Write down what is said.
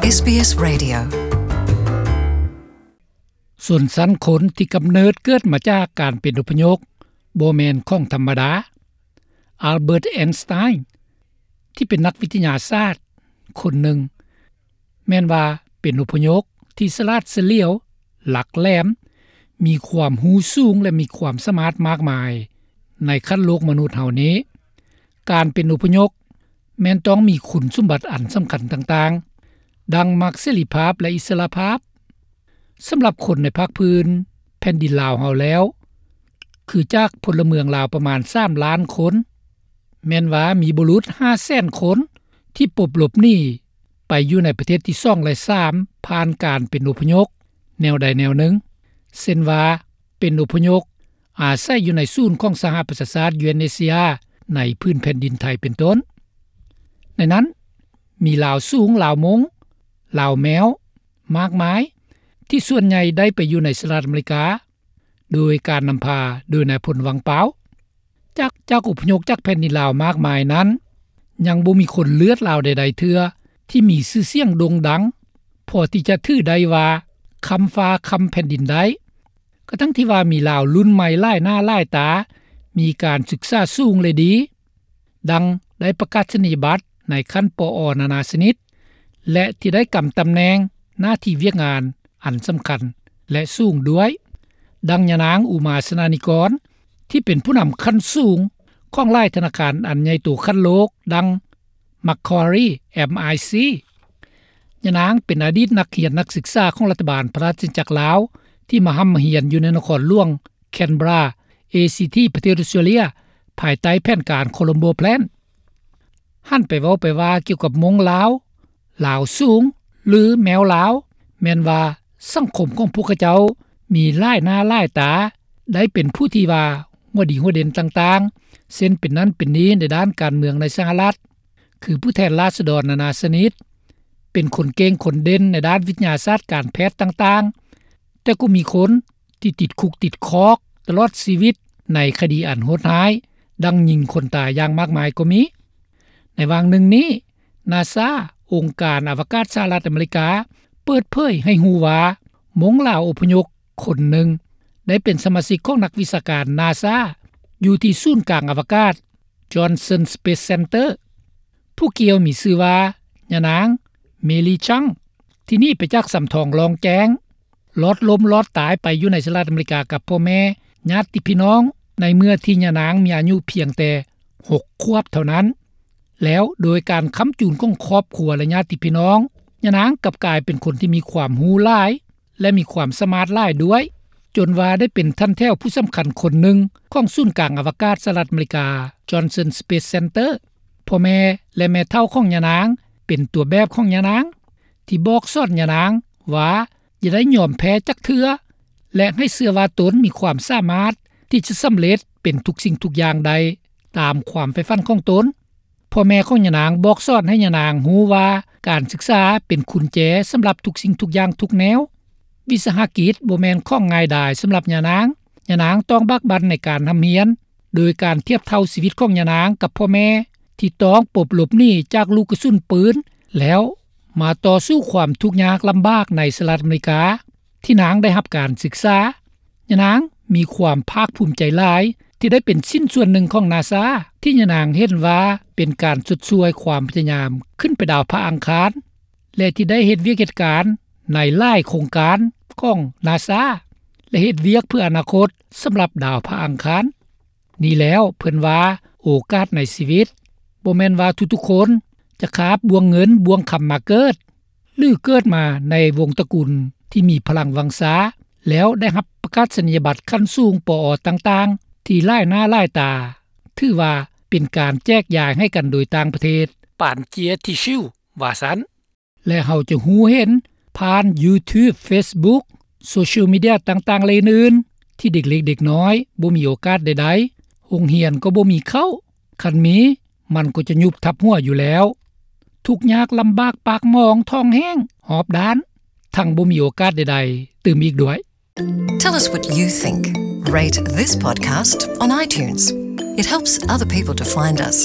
ເອສບີເອສ Radio. ຊົນຊັ້ນຄົນທີ່ກຳເນີດເກີດມາຈາກການເປັນອົບພະຍົບບໍ່ແມ່ນຂອງທຳມະດາ. Albert Einstein ທີ່ເປັນນັກວິທະຍາສາດຄົນໜຶ່ງ ແມ່ນວ່າເປັນອົບພະຍົບທີ່ສະຫຼາດສະຫຼຽວ, ຫຼັກແຫຼມ, ມີຄວາມຮູ້ສູງ ແລະ ມີຄວາມສາມາດມາກມາຍໃນຂັ້ນໂລກມະນຸດເຮົານີ້. ການເປັນອົບພະຍົບແມ່ນຕ້ອງມີຄຸນສົມບັດອັນສຳຄັນຕ່າງໆ ດັ່ງມັກເສລີພາບ ແລະ ອິດສະຫຼະພາບ. ສຳລັບຄົນໃນພາກພື້ນແຜ່ນດິນລາວເຮົາແລ້ວ ຄືຈາກພົນລະເມືອງລາວປະມານສາມລ້ານຄົນ, ແມ່ນວ່າມີບຸລຸດຫ້າແສນຄົນທີ່ປົບຫຼົບໜີໄປຢູ່ໃນປະເທດທີສອງ ແລະ ສາມ ຜ່ານການເປັນອົບພະຍົບແນວໃດແນວໜຶ່ງ, ເຊັ່ນວ່າ ເປັນອົບພະຍົບອາໄສຢູ່ໃນສູນຂອງສະຫະປະຊາຊາດ UNHCR ໃນພື້ນແຜ່ນດິນໄທເປັນຕົ້ນ. ໃນນັ້ນມີລາວສູງ, ລາວມົ້ງ, ລາວແມວ ມາກມາຍ ທີ່ສ່ວນໃຫຍ່ໄດ້ໄປຢູ່ໃນສະຫະລັດອາເມລິກາ ໂດຍການນຳພາໂດຍນາຍພົນ ວັງປາວ. ຈາກ ຈາກອົບພະຍົບຈາກແຜ່ນດິນລາວມາກມາຍນັ້ນ ຍັງບໍ່ມີຄົນເລືອດລາວໃດໆເທື່ອທີ່ມີຊື່ສຽງໂດ່ງດັງ ພໍທີ່ຈະຖືໄດ້ວ່າຄ້ຳຟ້າຄ້ຳແຜ່ນດິນໄດ້. ກະທັງທີ່ວ່າມີລາວລຸ້ນໃໝ່ຫຼາຍໜ້າຫຼາຍຕາ, ມີການສຶກສາສູງ ແລະ ດີ, ດັ່ງໄດ້ປະກາສະນີຍະບັດໃນຂັ້ນ ປອ ນານາຊະນິດ ແລະ ທີ່ໄດ້ກຳຕຳແໜ່ງໜ້າທີ່ວຽກງານອັນສຳຄັນ ແລະ ສູງດ້ວຍ, ດັ່ງຍານາງ ອຸມາ ຊະນານິກອນ ທີ່ເປັນຜູ້ນຳຂັ້ນສູງຂອງຫຼາຍທະນາຄານອັນໃຫຍ່ໂຕຂັ້ນໂລກ ດັ່ງ Macquarie, M I C. ຍານາງເປັນອະດີດນັກຮຽນນັກສຶກສາຂອງລັດຖະບານພະລາຊະອານາຈັກລາວ ທີ່ມາຮ່ຳມາຮຽນຢູ່ໃນນະຄອນຫຼວງ Canberra, A C T ປະເທດອອສເຕຣເລັຍ ພາຍໃຕ້ແຜນການ Colombo Plan. ຫັນໄປເວົ້າໄປວ່າກ່ຽວກັບມົ້ງລາວ, ລາວສູງ ຫຼື ແມວລາວ, ແມ່ນວ່າສັງຄົມຂອງພວກເຂົາເຈົ້າມີຫຼາຍໜ້າຫຼາຍຕາ, ໄດ້ເປັນຜູ້ທີ່ວ່າຫົວດີຫົວເດັ່ນຕ່າງໆ ເຊັ່ນເປັນນັ້ນເປັນນີ້ໃນດ້ານການເມືອງໃນສະຫະລັດ, ຄືຜູ້ແທນລາຊະດອນນານາຊະນິດ, ເປັນຄົນເກັ່ງຄົນເດັ່ນໃນດ້ານວິທະຍາສາດການແພດຕ່າງໆ, ແຕ່ກໍມີຄົນທີ່ຕິດຄຸກຕິດຄອກຕະຫຼອດຊີວິດໃນຄະດີອັນໂຫດຮ້າຍ, ດັ່ງຍິງຄົນຕາຍຢ່າງມາກມາຍກໍມີ. ໃນຫວ່າງໜຶ່ງນີ້, NASA ອົງການອະວະກາດສະຫະລັດອາເມລິກາ ເປີດເຜີຍໃຫ້ຮູ້ວ່າ ມົ້ງລາວອົບພະຍົບຄົນໜຶ່ງ ໄດ້ເປັນສະມາຊິກຂອງນັກວິຊາການ NASA ຢູ່ທີ່ສູນກາງອະວະກາດ Johnson Space Center. ຜູ້ກ່ຽວມີຊື່ວ່າ ຍານາງ Mei Li Chang ທີ່ໜີໄປຈາກສຳທອງລ່ອງແຈ້ງ, ລອດລົ້ມລອດຕາຍໄປຢູ່ໃນສະຫະລັດອາເມລິກາກັບພໍ່ແມ່, ຍາດຕິພີ່ນ້ອງ ໃນເມື່ອທີ່ຍານາງມີອາຍຸພຽງແຕ່ຫົກຂວບເທົ່ານັ້ນ. ແລ້ວໂດຍການຄ້ຳຈູນຂອງຄອບຄົວ ແລະ ຍາດຕິພີ່ນ້ອງ, ຍານາງກັບກາຍເປັນຄົນທີ່ມີຄວາມຮູ້ຫຼາຍ ແລະ ມີຄວາມສາມາດຫຼາຍດ້ວຍ, ຈົນວ່າໄດ້ເປັນຖັນແຖວຜູ້ສຳຄັນຄົນໜຶ່ງຂອງສູນກາງອະວະກາດສະຫະລັດອາເມລິກາ Johnson Space Center. ພໍ່ແມ່ ແລະ ແມ່ເຖົ້າຂອງຍານາງເປັນຕົວແບບຂອງຍານາງ ທີ່ບອກສອນຍານາງວ່າຢ່າໄດ້ຍອມແພ້ຈັກເທື່ອ ແລະ ໃຫ້ເຊື່ອວ່າຕົນມີຄວາມສາມາດທີ່ຈະສຳເລັດເປັນທຸກສິ່ງທຸກຢ່າງໄດ້ຕາມຄວາມໃຝ່ຝັນຂອງຕົນ. ພໍ່ແມ່ຂອງຍານາງບອກສອນໃຫ້ຍານາງຮູ້ວ່າການສຶກສາເປັນກຸນແຈສຳລັບທຸກສິ່ງທຸກຢ່າງທຸກແນວ. ວິສາຫະກິດບໍ່ແມ່ນຂອງງ່າຍດາຍສຳລັບຍານາງ. ຍານາງຕ້ອງບາກບັ່ນໃນການຮ່ຳຮຽນ, ໂດຍການທຽບເທົ່າຊີວິດຂອງຍານາງກັບພໍ່ແມ່ທີ່ຕ້ອງປົບຫຼົບໜີຈາກລູກກະສຸນປືນ ແລ້ວມາຕໍ່ສູ້ຄວາມທຸກຍາກລຳບາກໃນສະຫະລັດອາເມລິກາ ທີ່ນາງໄດ້ຮັບການສຶກສາ. ຍານາງມີຄວາມພາກພູມໃຈຫຼາຍທີ່ໄດ້ເປັນຊິ້ນສ່ວນໜຶ່ງຂອງນາຊາ ທີ່ຍານາງເຫັນວ່າເປັນການຊົດຊ່ວຍຄວາມພະຍາຍາມຂຶ້ນໄປດາວພະອັງຄານ ແລະ ທີ່ໄດ້ເຮັດວຽກເຮັດການໃນຫຼາຍໂຄງການຂອງນາຊາ ແລະ ເຮັດວຽກເພື່ອອະນາຄົດສຳລັບດາວພະອັງຄານ. ນີ້ແລ້ວເພິ່ນວ່າໂອກາດໃນຊີວິດ ບໍ່ແມ່ນວ່າທຸກໆຄົນຈະຄາບບ່ວງເງິນບ່ວງຄຳມາເກີດ ຫຼື ເກີດມາໃນວົງຕະກຸນທີ່ມີພະລັງວັງຊາ ແລ້ວໄດ້ຮັບປະກາສະນີຍະບັດຂັ້ນສູງ ປອ ຕ່າງໆ ທີ່ຫຼາຍໜ້າຫຼາຍຕາ, ຖືວ່າເປັນການແຈກຢາຍໃຫ້ກັນໂດຍຕ່າງປະເທດ ປານເຈຍທີຊິວ ວ່າຊັ້ນ. ແລະ ເຮົາຈະຮູ້ເຫັນຜ່ານ YouTube, Facebook, Social Media ຕ່າງໆ ແລະ ອື່ນໆ ທີ່ເດັກເລັກເດັກນ້ອຍບໍ່ມີໂອກາດໃດໆ, ໂຮງຮຽນກໍບໍ່ມີເຂົ້າ, ຄັນມີ ມັນກໍຈະຍຸບທັບຫົວຢູ່ແລ້ວ. ທຸກຍາກລຳບາກປາກໝອງທ້ອງແຫ້ງຮອບດ້ານ, ທັງບໍ່ມີໂອກາດໃດໆຕື່ມອີກດ້ວຍ. Tell us what you think. Rate this podcast on iTunes. It helps other people to find us.